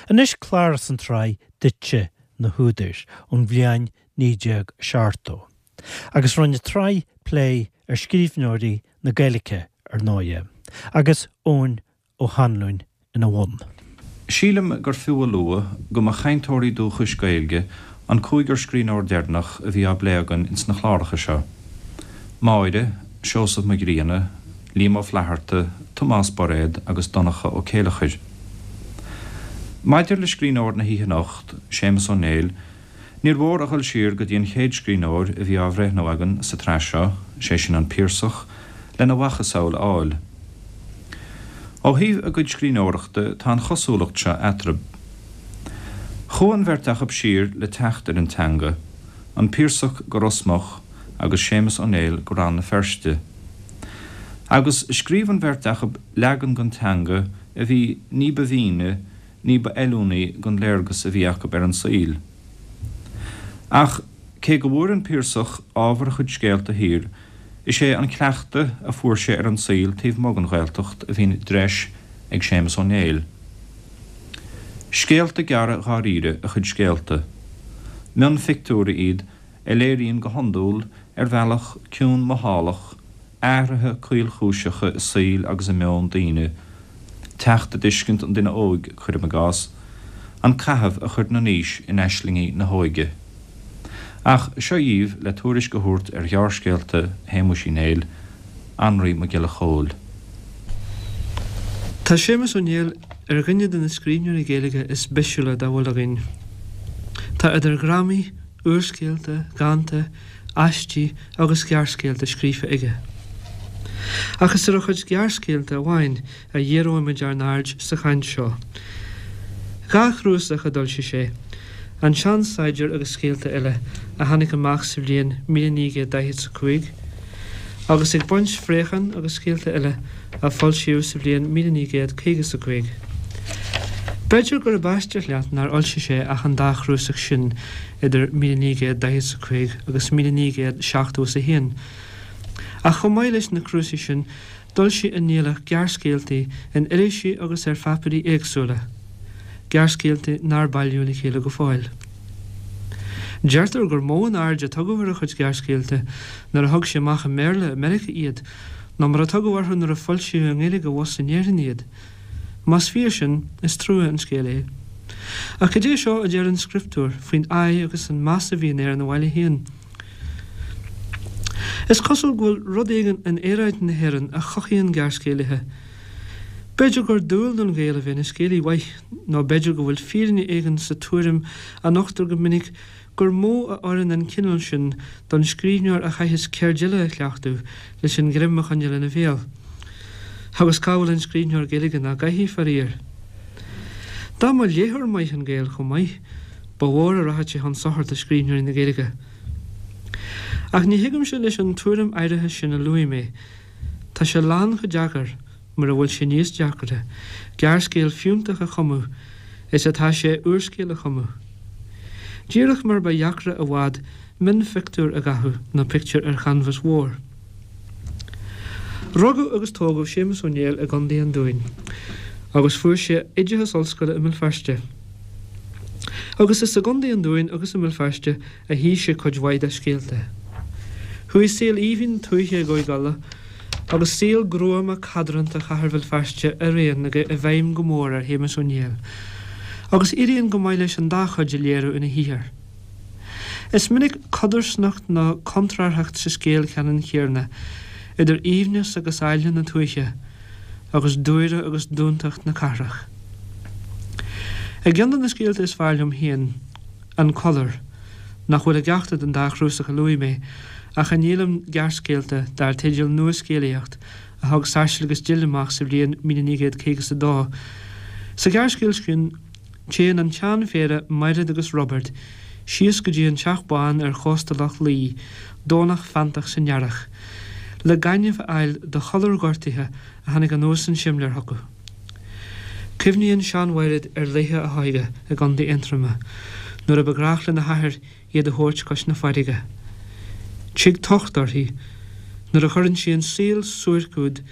Anois clár as an tsraith Duitse na hÚdair ón bhliain 1970. Agus rinne an tsraith plé ar scríbhneoirí na Gaeilge, ar ndóighe, agus Eoin Ó hAnluain ina bhun. Sílim gur fiú a lua go mba chainteoirí dúchais Gaeilge an cúigear scríbhneoir deireanach a bhí á bplé againn ins na cláracha seo, Máire, Seosamh Mac Grianna, Liam Ó Flaithearta, Tomás Bairéad agus Donncha Ó Céileachair. Maidir le scríbhneoir na hoíche anocht, Séamus Ó Néill, níor mhór a dhul siar go dtí an chéad scríbhneoir a bhí á bhreithniú againn sa tsraith seo, sé sin an Piarsach, lena mhacasamhail a fháil. Ó thaobh a gcuid scríbhneoireachta tá an chosúlacht seo eatarthu. Chuaigh an bheirt acu siar le teacht ar an teanga, an Piarsach go Ros Muc agus Séamus Ó Néill go Rann na Feirste. Agus scríobh an bheirt acu leagan den teanga a bhí ní ba mhíne, ní ba fheiliúnaí don léargas a bhí acu ar an saol. Ach cé go bhfuair an Piarsach ábhar a chuid scéalta thiar, is é an cleachtadh a fuair sé ar an saol taobh amuigh den Ghaeltacht a bhí i dtreis ag Séamus Ó Néill. Scéalta gearra dháiríre a chuid scéalta. Mionphictiúirí iad a léiríonn go hiondúil, ar bhealach ciúin mothálach, athruithe caolchúiseacha i saol agus i meon daoine, teacht i dtuiscint an duine óig, cuirim i gcás, an caitheamh a chuireann an aois in aislingí na hóige. Ach seo dhíbh le tuairisc a thabhairt ar ghearrscéalta Shéamuis Uí Néill, Anraí Mac Giolla Chóill. Tá Séamus Ó Néill ar dhuine de na scríbhneoirí Gaeilge is bisiúla dá bhfuil againn. Tá idir dhrámaí, úrscéalta, dhánta, aistí agus gearrscéalta scríofa aige. Ach is ar a chuid gearrscéalta amháin a dhíreoimid ár n-aird sa chaint seo. 2 chnuasach a d'fhoilsigh sé, An Sean-Saighdiúir agus Scéalta Eile, a tháinig amach sa bhliain 1945, agus Ag Baint Phréachán agus Scéalta Eile, a foilsíodh sa bhliain 1955. B'fhéidir gurb aisteach leat nár fhoilsigh sé ach an dá chnuasach sin idir 1945 agus 1971, ach chomh maith leis na cnuasaigh sin d'fhoilsigh an Néilleach gearrscéaltaí in irisí agus ar pháipéirí éagsúla, gearrscéaltaí nár bailíodh le chéile go fóill. Deirtear gur mó an aird a tugadh ar a chuid gearrscéalta nuair a thug sé amach i mBéarla i Meiriceá iad ná mar a tugadh orthu nuair a foilsíodh i nGaeilge abhus in Éirinn iad. Más fíor sin, is trua an scéal é. Ach cad é seo a deir an scrioptúr faoin aghaidh agus an meas a bhíonn air ina bhaile féin? Is cosúil go bhfuil rud éigin in aeráid na hÉireann a chothaíonn gearrscéalaithe. B'fhéidir gur dual don Ghael a bheith ina scéalaí mhaith, nó b'fhéidir go bhfuil fírinne éigin sa tuairim a nochtar go minic gur mó a oireann an cineál sin don scríbhneoir a chaitheas ceird eile a chleachtadh leis an ghreim a choinneáil ina bhéal. Agus cá bhfuil an scríbhneoir Gaeilge nach gcaithfidh, faraor? Dá mba léitheoir maith an Gael chomh maith, ba mhór a rachadh sé chun sochair do scríbhneoirí na Gaeilge. Ach ní thagaimse leis an tuairim áirithe sin a luaigh mé. Tá sé lán chomh deacair, mura bhfuil sé níos deacra, gearrscéal fiúntach a chumadh is atá sé úrscéal a chumadh. Díreach mar ba dheacra i bhfad mionphictiúr a dhathú ná pictiúr ar chanbhas mhór. Rugadh agus tógadh Séamus Ó Néill i gContae an Dúin agus fuair sé oideachas ollscoile i mBéal Feirste. Agus is i gContae an Dúin agus i mBéal Feirste a shuigh sé cuid mhaith dá scéalta. Chuaigh saol aoibhinn tuaithe i gCúige Uladh agus saol gruama cadránta chathair Bhéal Feirste araon i bhfeidhm go mór ar Shéamus Ó Néill, agus éiríonn go maith leis an dá chuid a léiriú ina shaothar. Is minic codarsnacht nó contrárthacht sa scéal ceannann céanna idir aoibhneas agus áille na tuaithe agus dúire agus dúntacht na cathrach. I gceann de na scéalta is fearr liom féin, An Collar, nach bhfuil i gceachtar den dá chnuasach a luaigh mé, ach i ndíolaim gearrscéalta dar teideal Nua-Scéalaíocht a thug Sáirséal agus Dill amach sa bhliain 1952. Sa ghearrscéal sin, téann an tseanphéire Maighread agus Roibeard síos go dtí an Teach Bán ar chósta Loch Lao, Domhnach feanntach san earrach, le gaineamh a fháil do chollar gortaithe a tháinig anuas an simléar chucu. Cuimhníonn sean-Mhaighread ar laethe a hóige i gContae Aontroma, nuair a ba ghnách lena hathair iad a thabhairt cois na farraige. Tig tocht uirthi nuair a chuireann sí an saol suairc úd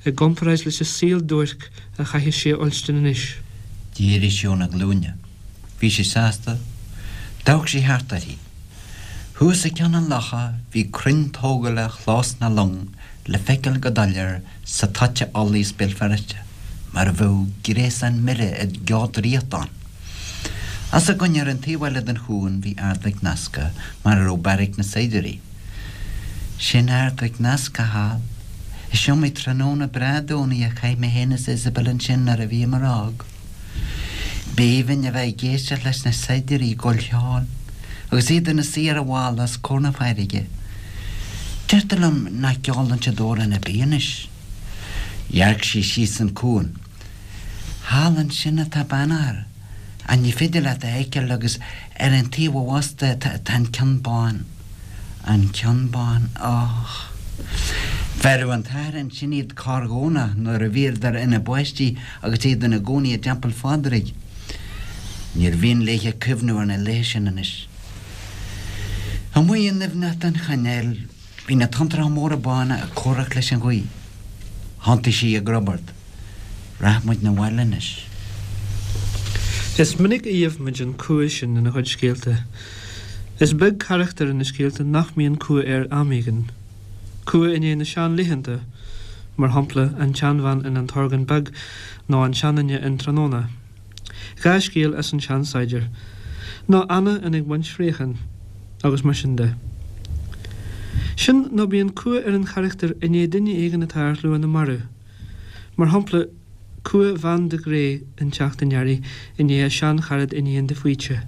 i gcomparáid leis an saol duairc a chaithfeas sí a fhuilstin anois. D'éirigh sí óna glúine. Bhí sí sásta. D'amharc sí thart uirthi. Thuas ag ceann an locha bhí crainn tógála Chlós na Long le feiceáil go doiléir sa toit a fholaíos Béal Feirste, mar a bheadh gréasán mire i gceo draíochta ann. Os a gcoinne ar an taobh eile den chuan bhí Ard Mhic Nasca, mar a raibh beairic na saighdiúirí. Sin Ard Mhic Nasca thall. Is iomaí tráthnóna breá Domhnaigh a chaith mé féin is Isabel ansin nuair a bhíomar óg. B'aoibhinn a bheith ag éisteacht leis na saighdiúirí ag gabháil cheoil agus iad ina suí ar an bhalla os comhair na farraige. Deirtear liom nach gceolann siad amhrán ar bith anois. Dhearc sí síos an cuan. Thall ansin atá Beannchar, ach ní féidir leat a fheiceáil agus ar an taobh abhus de tá an Ceann Bán. An Ceann Bán, och. Bheireadh an t-athair ansin iad corr-Dhomhnach nuair a bhíodar ina bpáistí agus iad ina gcónaí i dTeampall Phádraig. Níor mhian léithe cuimhniú ar na laethe sin anois. Amuigh i ndoimhneacht an chainéil bhí na tonntracha móra bána ag comhrac leis an ghaoth. Thiontaigh sí ag Roibeard. Rachaidh muid 'na bhaile anois. Is minic a gheibh muid an cumha sin ina chuid scéalta. Is beag carachtar ina scéalta nach mbíonn cumha air am éigin. Cumha i ndiaidh na seanlaethanta, mar shampla, an tseanbhean in An tOrgán Beag nó an seanduine in Tráthnóna. 2 scéal as An Seansaighdiúir. Nó Anna in Ag Baint Phréachán, agus mar sin de. Sin nó bíonn cumha ar an charachtar i ndiaidh duine éigin atá ar shlua na marbh. Mar shampla, cumha Bhean de Grey in Teacht an Earraigh i ndiaidh a seancharad Iníon de Faoite.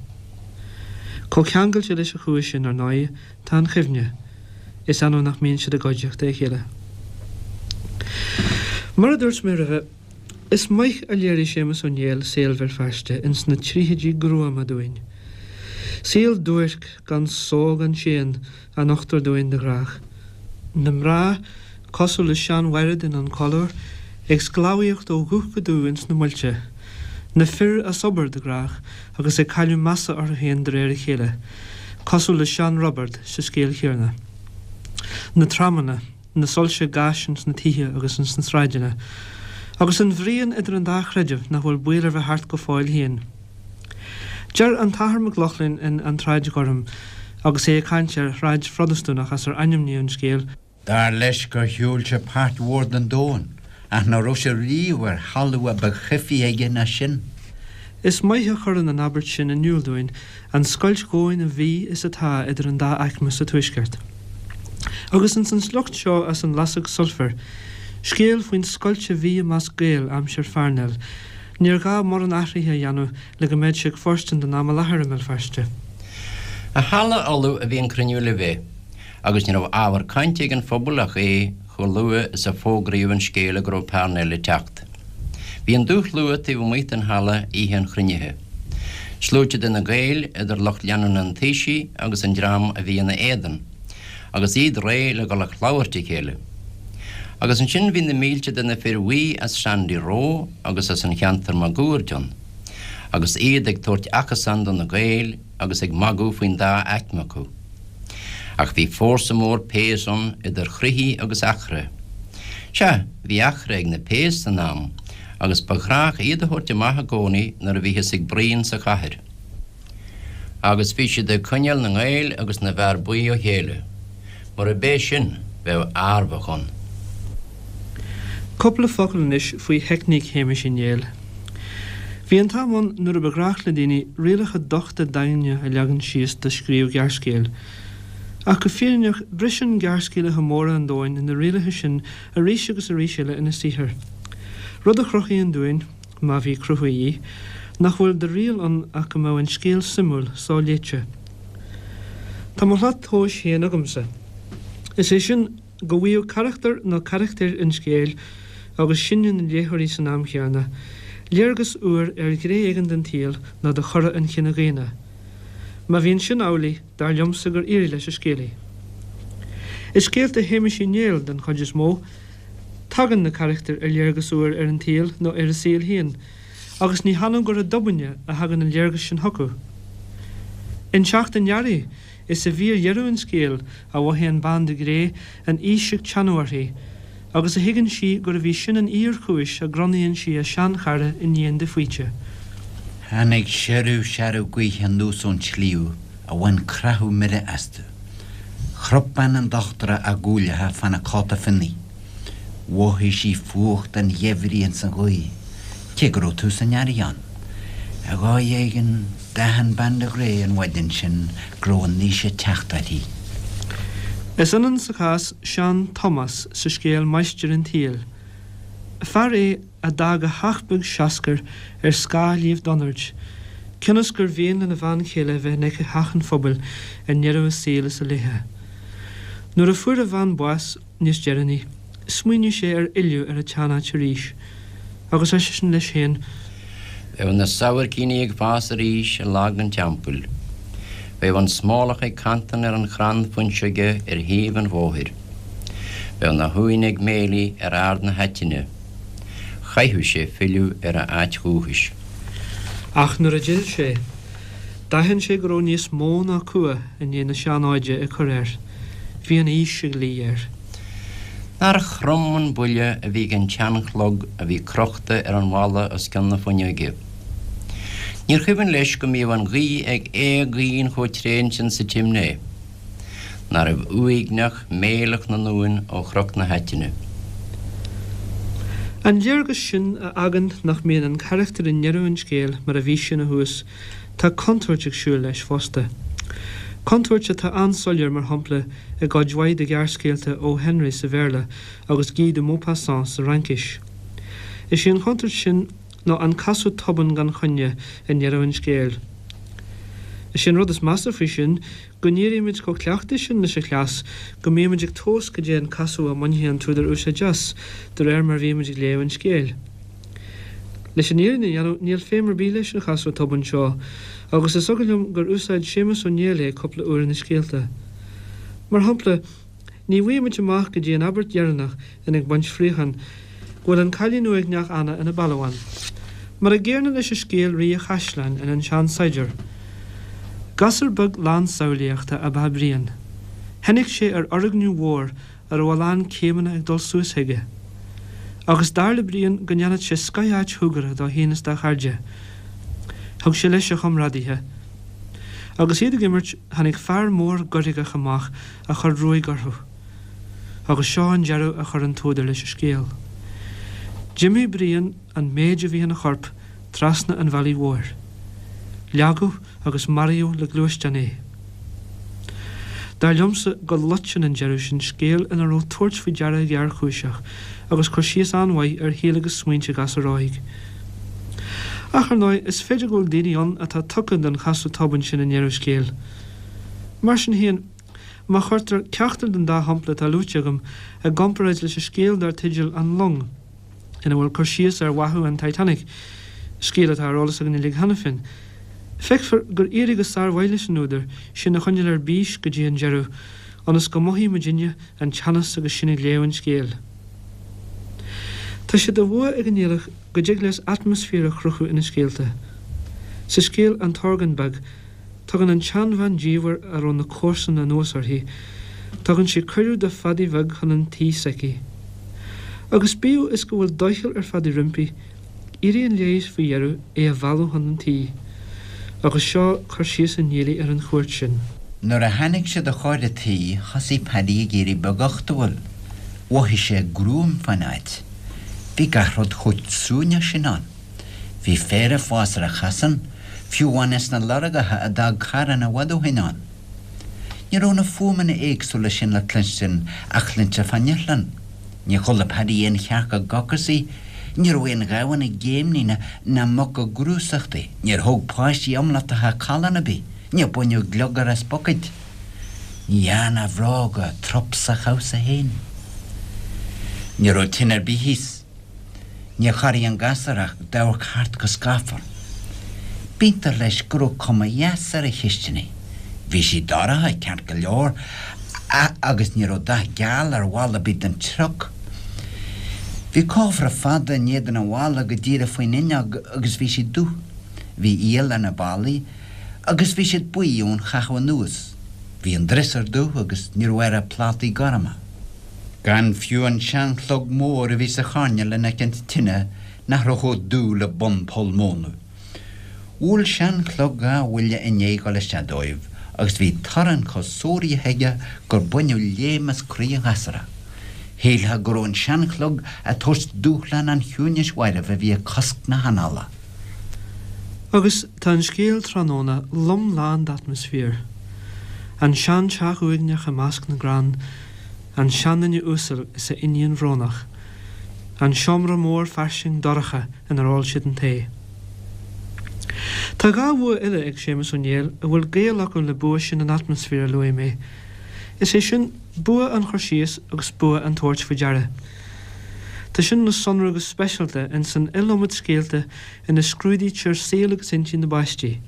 Chomh ceangailte leis an chumha sin, ar ndóigh, tá an chuimhne. Is annamh nach mbíonn siad i gcuideachta a chéile. Mar a dúirt mé roimhe, is maith a léirigh Séamus Ó Néill saol Bhéal Feirste ins na tríochaidí gruama dúinn. Saol duairc, gan só gan séan, a nochtar dúinn de ghnách. Na mná, cosúil le sean-Mhaighread in An Colúr, ag sclábhaíocht ó dhubh go dubh ins na muilte. Na fir as obair, de ghnách, agus ag cailleadh measa orthu féin de réir a chéile, cosúil le sean-Roibeard sa scéal chéanna. Na tramanna, na soilse gáis ins na tithe agus ins na sráideanna. Agus an bhruíon idir an dá chreideamh nach bhfuil baol ar bith thart go fóill féin. Deir an tAthair Mac Lochlainn in An tSráid Ghorm, agus é ag caint ar shráid Phrotastúnach as ar ainmníodh an scéal, Dar leis gur shiúil sé páirt mhór den domhan, ach ná raibh sé riamh ar thalamh a ba choimhthí aige ná sin. Is maith a chuireann an abairt sin in iúl dúinn an scoilt dhomhain a bhí is atá idir an dá aicme sa Tuaisceart. Agus ins an sliocht seo as An Lasóg Sulfair, scéal faoin scoilt a bhí i measc Gael aimsir Pharnell, níor ghá mórán athraithe a dhéanamh le go mbeadh sé ag fóirstean don am i láthair i mBéal Feirste. I halla Uladh a bhí an cruinniú le bheith, agus ní raibh ábhar cainte ag an phobal ach é, chomh luath is a fógraíodh an scéala go raibh Parnell ag teacht. Bhí an dúshlua taobh amuigh den halla oíche an chruinnithe. Sluaite de na Gaeil, idir lucht leanúna an Taoisigh agus an dream a bhí ina éadan, agus iad réidh le dhul ag labhairt a chéile. Agus ansin bhí na mílte de na fir bhuí as Sandy Row agus as an cheantar máguaird ann, agus iad ag tabhairt achasán do na Gaeil agus ag magadh faoin dá aicme acu. Ach bhí fórsa mór péas ann, idir chroithí agus eachra. Sea, bhí eachra ag na péas san am, agus ba ghnách iad a thabhairt amach i gcónaí nuair a bhíothas ag bruíon sa chathair. Agus bhí siad ag coinneáil na nGael agus na bhfear buí ó chéile. Murab é sin, bheadh adhmhach ann. Cúpla focal anois faoi theicníc Shéamais Uí Néill. Bhí an t-am ann nuair a ba ghnách le daoine rialacha dochta daingne a leagan síos do scríobh gearrscéil. Ach go fírinneach, briseann gearrscéalaithe móra an domhain na rialacha sin arís agus arís eile ina saothar. Rud a chruthaíonn dúinn, má bhí cruthú a dhíth, nach bhfuil de riail ann ach go mbeadh an scéal suimiúil, so-léite. Tá mo shlat tomhais féin agamsa. Is é sin, go bhfaigheadh carachtar nó carachtair an scéil, agus sinne na léitheoirí san am chéanna, léargas úr ar ghné éigin den tsaol nó de chora an chine dhaonna. Má bhíonn sin amhlaidh, dar liomsa gur éirigh leis an scéalaí. I scéalta Shéamais Uí Néill, den chuid is mó, tagann na carachtair ar léargas úr ar an tsaol nó ar a saol féin, agus ní hannamh gur i dtobainne a thagann an léargas sin chucu. In Teacht an Earraigh, Is i bhfíordheireadh an scéil a mhothaíonn Bean de Gré an aois ag teannadh uirthi, agus a thuigeann sí gurbh í sin an fhíorchúis a gcronaíonn sí a seanchara Iníon de Faoite. Tháinig siorradh searbh gaoithe anuas ón sliabh a bhain creathadh mire astu. Chrap bean an dochtúra a guailleacha fána cóta fionnaidh. Mhothaigh sí fuacht an gheimhridh ins an ghaoth, cé go raibh tús an earraigh ann. Ar dhóigh éigin, d'aithin bean de Ghré an mhaidin sin go raibh an aois ag teacht uirthi. Is ionann sa chás Sean Tomás sa scéal Máistir an tSaoil. Fear é a d'fhág a theach beag seascair ar scáth Shliabh Donaird, cionn is gur mhian lena bhean chéile a bheith in aice theach an phobail i ndeireadh a saoil is a laetha. Nuair a fuair a bhean bás níos deireanaí, smaoinigh sé ar fhilleadh ar an tseanáit arís, agus ar seisean leis féin. Bheadh na sabhaircíní ag fás arís i lag an teampaill. Bheadh an smólach ag cantain ar an chrann fuinseoige ar thaobh an bhóthair. Bheadh na huain ag méiligh ar ard na haitine. Chaithfeadh sé filleadh ar a áit dhúchais. Ach nuair a d'fhill sé, d'aithin sé go raibh níos mó ná cumha i ndiaidh na seanóide ag cur air. Bhí an aois ag luí air. Nár throm an buille a bhí ag an tseanchlog a bhí crochta ar an bhalla os cionn na fuinneoige. Níor chuimhin leis go mbíodh an ghaoth ag éagaoin chomh tréan sin sa tsimné. Nárbh uaigneach méileach na n-uan ó Chnoc na hAitine. An léargas sin a fhágann nach mbíonn an carachtar i ndeireadh an scéil mar a bhí sé ina thús, tá contúirt ag siúl leis fosta. Contúirt atá an-soiléir, mar shampla, i gcuid mhaith de ghearrscéalta O. Henry sa Bhéarla agus Guy de Maupassant sa Fhraincis. Is í an chontúirt sin ná an casadh tobann gan choinne i ndeireadh an scéil. Is é an rud is measa faoi sin go n-éirímid chomh cleachta sin leis an chleas go mbímid ag tomhas cad é an casadh a mbainfidh an t-údar úsáid as de réir mar a bhímid ag léamh an scéil. Leis an fhírinne a dhéanamh, níl feidhm ar bith leis an chasadh tobann seo, agus is eagal liom gur úsáid Séamus Ó Néill é cúpla uair ina scéalta. Mar shampla, ní bhfaighimid amach go dtí an abairt dheireanach in Ag Baint Fraochán go bhfuil an cailín uaigneach Anna ina balbhán. Mar an gcéanna leis an scéal Rí an Chaisleáin in An Sean-Saighdiúir. Gasúr beag lán samhlaíochta ab ea Brian. Tháinig sé ar fhoirgneamh mhór a raibh a lán céimeanna ag dul suas chuige. Agus dar le Brian go ndéanfadh sé scoth-áit shúgartha dó féin is dá chairde. Thug sé leis a chomrádaithe. Agus iad ag imirt, tháinig fear mór goirgeach amach a chuir ruaig orthu. Agus seo an deireadh a chuir an t-údar leis an scéal. D'imigh Brian an méid a bhí ina chorp trasna an bhealaigh mhóir. Leagadh agus maraíodh le gluaisteán é. Dar liomsa go loiteann an deireadh sin scéal ina raibh tabhairt faoi deara géarchúiseach agus cur síos an-mhaith ar shaol agus smaointe gasúir óig. Ach, ar ndóigh, is féidir go bhfuil daoine ann atá tugtha don chasadh tobann sin i ndeireadh scéil. Mar sin féin, má chuirtear ceachtar den dá shampla atá luaite agam i gcomparáid leis an scéal dar teideal An Long, ina bhfuil cur síos ar bháthadh an Titanic, scéal atá ar eolas againn uilig cheana féin. Feicfear gur éirigh go sármhaith leis an údar sinn a choinneáil ar bís go dtí an deireadh, ionas go mothaí muidinne an teannas agus sinn ag léamh an scéil. Tá sé de bhua ag an Néilleach go dtig leis atmaisféar a chruthú ina scéalta. Sa scéal An tOrgán Beag, Tugann an tseanbhean diamhair a raibh na comharsana anuas uirthi, tugann sí cuireadh do Phadaí Bheag chun an tí s'aici. Agus bíodh is go bhfuil doicheall ar Phadaí roimpi, éiríonn léi faoi dheireadh é a mhealladh chun an tí. Agus seo cur síos an Niallaigh ar an chuairt sin. Nuair a tháinig siad a chóir a' tí thosaigh Paddy ag éirí beaguchtúil. Mhothaigh sé gruaim fán áit. Bhí gach rud chomh suaimhneach sin ann. Bhí féar ag fás ar an chasán, fiú amháin ins na lorgacha a d'fhág carranna i bhfad ó shin ann. Ní raibh na fuaimeanna éagsúla sin le cluinstin a chluintear fán iothlainn. Níor chuala Paddy aon chearc ag gocasaigh, ní raibh aon ghamhain ag géimnigh ná muc ag grúsachtaigh, níor thóg páistí iomlatacha callán ar bith, níor baineadh gliogar as bucaeid. Ní dhearna a bhróga trup sa chabhsa féin. Ní raibh tine ar bith thíos. Níor chorraigh an gasúr ach d'amharc thart go scáfar. B'iontach leis go raibh cuma dheas ar an chisteanach. Bhí sí dorcha, ceart go leor, agus ní raibh dath geal ar bhall ar bith den trioc. Bhí cófra fada in éadan an bhalla go díreach faoin fhuinneog agus bhí sí dubh. Bhí iall ar na ballaí agus bhí siad buí ón chaitheamh anuas. Bhí an driosúr dubh agus ní raibh air ach plátaí gorma. Gan fiú an seanchlog mór a bhí sa choirnéal in aice an tine nach raibh chomh dubh le bun poll móna. Bhuail seanchlog dha bhuille i ndiaidh dhul isteach dóibh agus bhí torann chomh suaraithe aige gur baineadh léim as croí an ghasúra. Shílfeá go raibh an seanchlog ag tabhairt dúshlán an chiúnais mhairbh a bhí ag cosc na hanála. Agus tá an scéal Tráthnóna lom lán d'atmaisféar. An seanteach uaigneach i measc na gcrann, an seanduine uasal is a iníon bhrónach, an seomra mór fairsing dorcha inar ól siad an tae. Tá dha bhua eile ag Séamus Ó Néill a bhfuil gaol acu le bua sin an atmaisféir a luaigh mé, is é sin, bua an chur síos agus bua an tabhairt faoi deara. Tá sin le sonrú go speisialta ins an iliomad scéalta ina scrúdaítear saol agus intinn na bpáistí.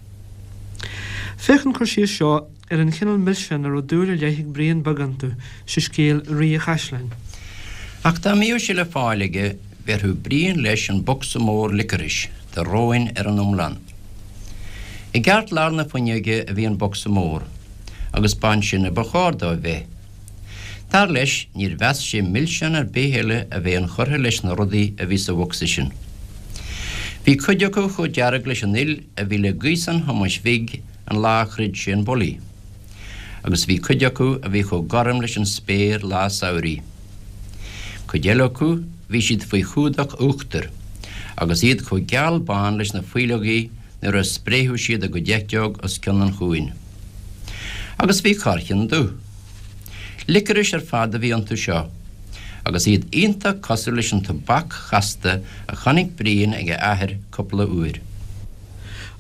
Féach an cur síos seo ar an chineál milseán a raibh dúil ar leith ag Brian Beag iontu sa scéal Rí a' Chaisleáin. Ach dá mbíodh sé le fáil aige, bhéarfadh Brian leis an bocsa mór licorice de róin ar an iomlán. I gceartlár na fuinneoige a bhí an bocsa mór, agus b'ansin a ba chóir dó a bheith. Dar leis, níor mheas sé milseán ar bith eile a bheith inchurtha leis na rudaí a bhí sa bhocsa sin. Bhí cuid acu chomh dearg leis an fhuil a bhí le gaosán Thomáis Bhig an lá a throid sé an bulaí, agus bhí cuid acu a bhí chomh gorm leis an spéir lá samhraidh. Cuid eile acu, bhí siad faoi chumhdach uachtair, agus iad chomh geal bán leis na faoileogaí nuair a spréifeadh siad a gcuid eiteog os cionn an chuain. Agus bhí corrcheann dubh. Licorice ar fad a bhí iontu seo, agus iad iontach cosúil leis an tobac chasta a chonaic Brian ag a athair cúpla uair.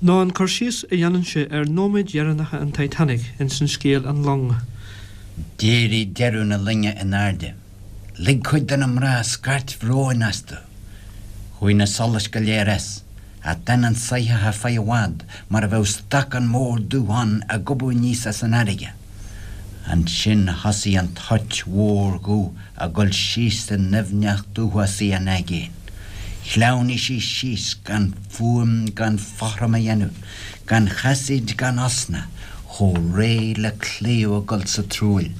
Nó an cur síos a dhéanann sé ar nóiméid dheireanacha an Titanic ins an scéal An Long. D'éirigh deireadh na loinge in airde. Lig cuid de na mná scairt bhróin astu. Chuaigh na solais go léir as. Ach d'fhan an soitheach ar feadh i bhfad mar a bheadh stacán mór dubh ann ag gobadh aníos as an fharraige. Ansin thosaigh an toirt mhór dhubh ag dul síos i ndoimhneacht uafásaí an aigéin. Shleamhnaigh sí síos gan fuaim gan fothram a dhéanamh, gan chasaoid gan osna, chomh réidh le claíomh ag dul sa truaill.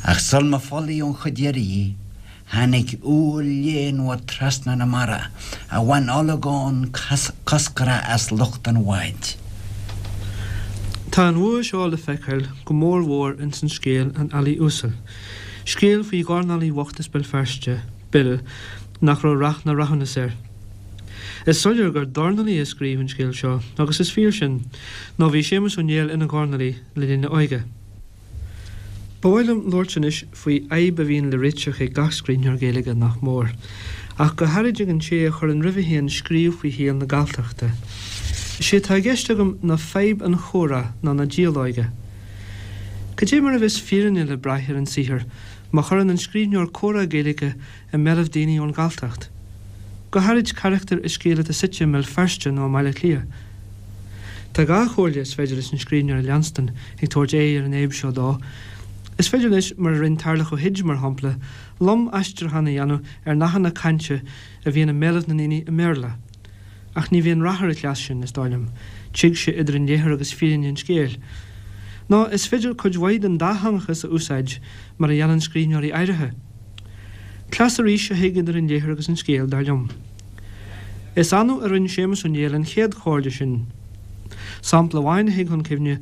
Ach sul má folaíodh an chuid dheiridh dhi, Tháinig úll léanmhar trasna na mara a bhain olagón coscrach as lucht an bháid. Tá an bhua seo le feiceáil go mór mhór ins an scéal An Ealaí Uasal, scéal faoi dhornálaí bhocht as Béal Feirste, Bill, nach raibh rath ná rathúnas air. Is soiléir gur dornálaí a scríobh an scéal seo, agus is fíor sin, nó bhí Séamus Ó Néill ina dhornálaí le linn a óige. Ba mhaith liom labhairt anois faoi fhadhb a bhíonn le réiteach ag gach scríbhneoir Gaeilge, nach mór, ach go háirid ag an té a chuireann roimhe féin scríobh faoi shaol na Galltachta. Is é atá i gceist agam ná fadhb an chomhrá nó na dialóige. Cad é mar a bheas fírinne le braith ar an saothar má chuireann an scríbhneoir comhrá Gaeilge i mbéalaibh daoine ón Ghalltacht, go háirid carachtair i scéal atá suite i mBéal Feirste nó i mBaile Átha Cliath. Tá dha chomhairle is féidir leis an scríbhneoir a leanstan ag tabhairt aghaidh ar an fhadhb seo dó. Is féidir leis, mar a rinn Tarlach Ó hUid, mar shampla, lom-aistriúchán a dhéanamh ar nathanna cainte a bhíonn i mbéalaibh na ndaoine i mBéarla. Ach ní bhíonn rath ar an chleas sin, is dóigh liom. Tig sé idir an léitheoir agus fírinne an scéil. Nó is féidir cuid mhaith den dátheangachas a úsáid, mar a dhéanann scríbhneoirí áirithe. Cleas arís a thig idir an léitheoir agus an scéal, dar liom. Is annamh a rinne Séamus Ó Néill an chéad chomhairle sin. Sampla amháin a thig chun cuimhne,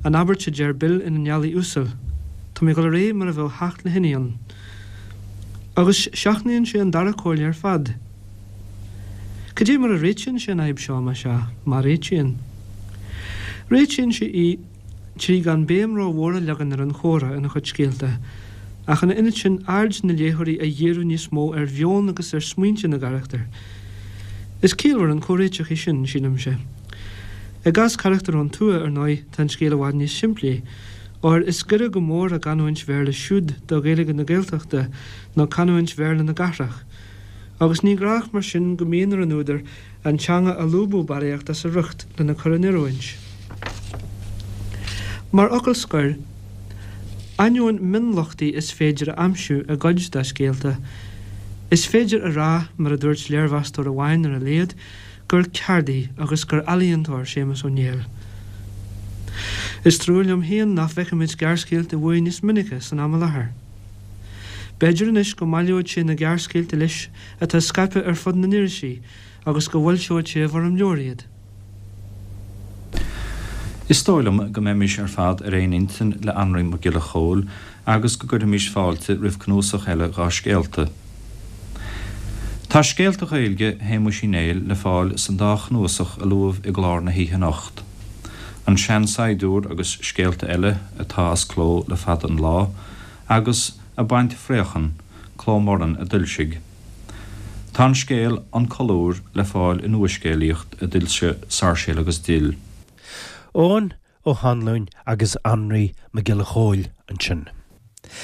an abairt a deir Bill in An Ealaí Uasal, Tá mé ag dul ar aghaidh mar a bheadh theacht le thine ann. Agus seachnaíonn sé an dara comhairle ar fad. Cad é mar a réitíonn sé an fhadhb seo, más ea, má réitíonn? Réitíonn sé í. 3 gan béim rómhór a leagan ar an chomhrá ina chuid scéalta, ach ina ionad sin aird na léitheoirí a dhíriú níos mó ar mheon agus ar smaointe na gcarachtar. Is ciallmhar an comhréiteach é sin, sílimse. I gcás carachtar ón tuath, ar ndóigh, tá an scéal i bhfad níos simplí, óir is gaire go mór a gcanúint Bhéarla siúd do Ghaeilge na Gaeltachta ná canúint Bhéarla na gcathrach, agus ní gnách mar sin go mbíonn ar an údar an teanga a lúbadh barraíocht as a riocht lena cur in oiriúint. Mar fhocal scoir, ainneoin mionlochtaí is féidir a aimsiú i gcuid dá scéalta, is féidir a rá, mar a dúirt léirmheastóir amháin ar a laghad, gur ceardaí agus gur ealaíontóir Séamus Ó Néill. Is trua liom féin nach bhfeicimid gearrscéalta uaidh níos minice san am i láthair. B'fhéidir anois go mbaileoidh sé na gearrscéalta leis atá scaipthe ar fud na n-irisí agus go bhfoilseoidh sé i bhfoirm leabhair iad. Is dóigh liom go mbeimis ar fad ar aon intinn le Anraí Mac Giolla Chóill agus go gcuirfimis fáilte roimh cnuasach eile dhá scéalta. Tá scéalta Gaeilge Shéamuis Uí Néill le fáil san dá chnuasach a luadh i gclár na hoíche anocht, An Sean-Saighdiúir agus Scéalta Eile, atá as cló le fada an lá, agus Ag Baint Fraochan, Cló Morann a d'fhoilsigh. Tá an scéal An Colúr le fáil i Nua-Scéalaíocht a d'fhoilsigh Sáirséal agus Dill. Eoghan Ó hAnluain agus Anraí Mac Giolla Chóill ansin.